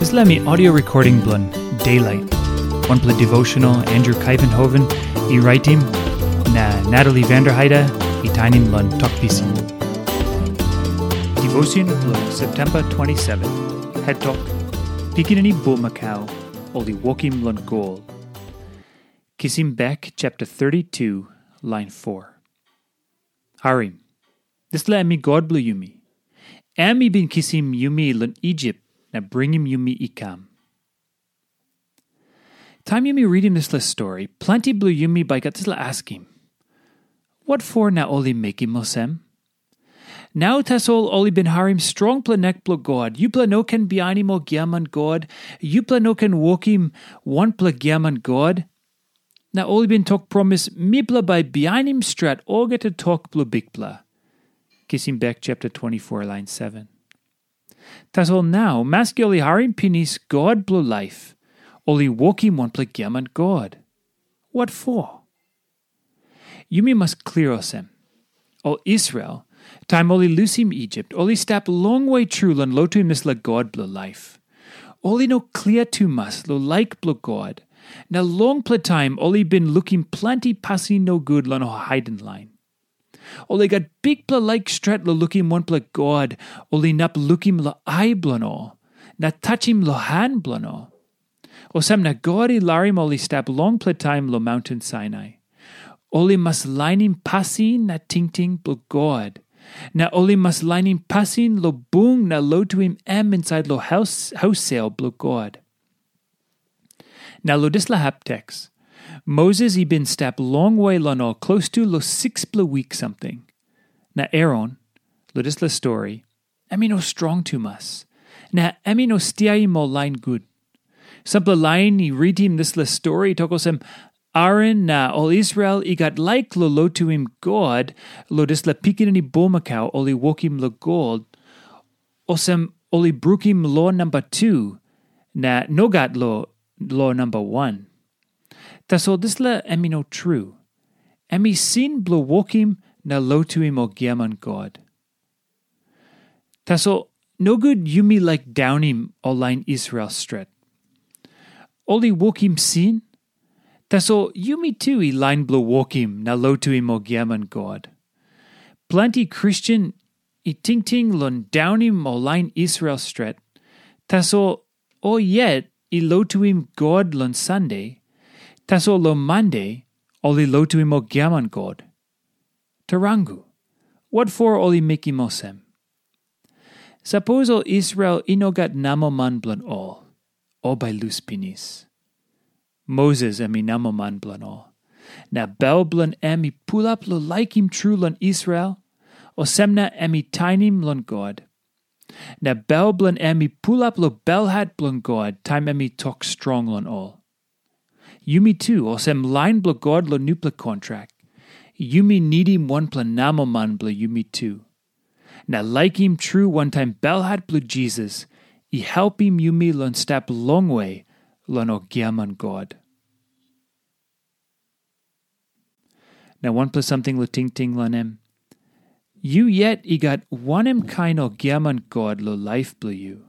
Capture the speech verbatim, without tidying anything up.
Dispela mi audio recording bilong Daylight, wanpela devotional Andrew Kaivenhoven i raitim, na Natalie Vanderheide i tainim long Tok Pisin. Devotion bilong September twenty-seven, het tok, Pikinini Bulmakau, ol i wokim long gol. Kisim bek chapter thirty-two, line four. Harim, dispela em i God bilong yumi. Em i bin kisim yumi long Isip na bringim yumi i kam. Taim yumi ritim dispela stori, planti bilong yumi bai gat dispela askim, wat for na ol i mekim olsem? Nau tasol ol i bin harim strongpela nek bilong God, yupela no ken bihainim ol giaman god, yupela no ken wokim wanpela giaman god. Na ol i bin tok promis, mipela bai bihainim stret olgeta tok bilong Bikpela. Kisim bek chapter twenty-four, line seven. Tasol nau, maski ol i harim pinis God bilong laip, ol i wokim wanpela giaman god. Wat for? Yumi mas klia olsem, ol Israel, taim ol i lusim Isip, ol i stap longwe tru long lotuim dispela God bilong laip. Ol i no klia tumas long laik bilong God, na longpela taim ol i bin lukim planti pasin nogut long ol haiden lain. Ol i gat bikpela laik stret long lukim wanpela God ol inap lukim long ai bilong ol, na tachim long han bilong ol. Olsem na God i larim ol i stap longpela taim long maunten Sainai. Ol i mas lainim pasin na tingting bilong God, na ol i mas lainim pasin long bung na lotuim em insait long haus, haus sel bilong God. Na long dispela hap teks, Moses i bin stap longwe long ol klostu long sikspela wik samting. Na Aaron, long dispela stori, em i no strong tumas, na em i no stiaim ol lain gut. Sampela lain i ritim dispela stori i tok olsem, Aaron na ol Israel i gat laik long lotuim God long dispela pikinini bulmakau ol i wokim long gol, olsem ol i brukim lo namba tu, na nogat lo, lo namba wan. Tasol dispela em i no tru. Em i sin bilong wokim na lotuim ol giaman god. Tasol nogut yumi laik daunim ol lain Israel stret. Ol i wokim sin, tasol yumi tu i lain bilong wokim na lotuim ol giaman god. Planti Kristen i tingting long daunim ol lain Israel stret, tasol ol yet i lotuim God long Sande, tasol long Mande ol i lotuim ol giaman god. Tarangu, wat for ol i mekim olsem? Sapos ol Israel i no gat namoman bilong ol, ol bai lus pinis. Moses em i namoman bilong ol, na bel bilong em i pulap long laikim tru long Israel, olsem na em i tainim long God. Na bel bilong em i pulap long belhat bilong God taim em i tok strong long ol. Yumi tu, olsem lain bilong God long nupela kontrak, yumi nidim wanpela namoman bilong yumi tu. Na laikim tru wantaim belhat bilong Jisas i helpim yumi long stap longwe long ol giaman god. Na wanpela samting long tingting long em. Yu yet i gat wanem kain ol giaman god long laip bilong yu?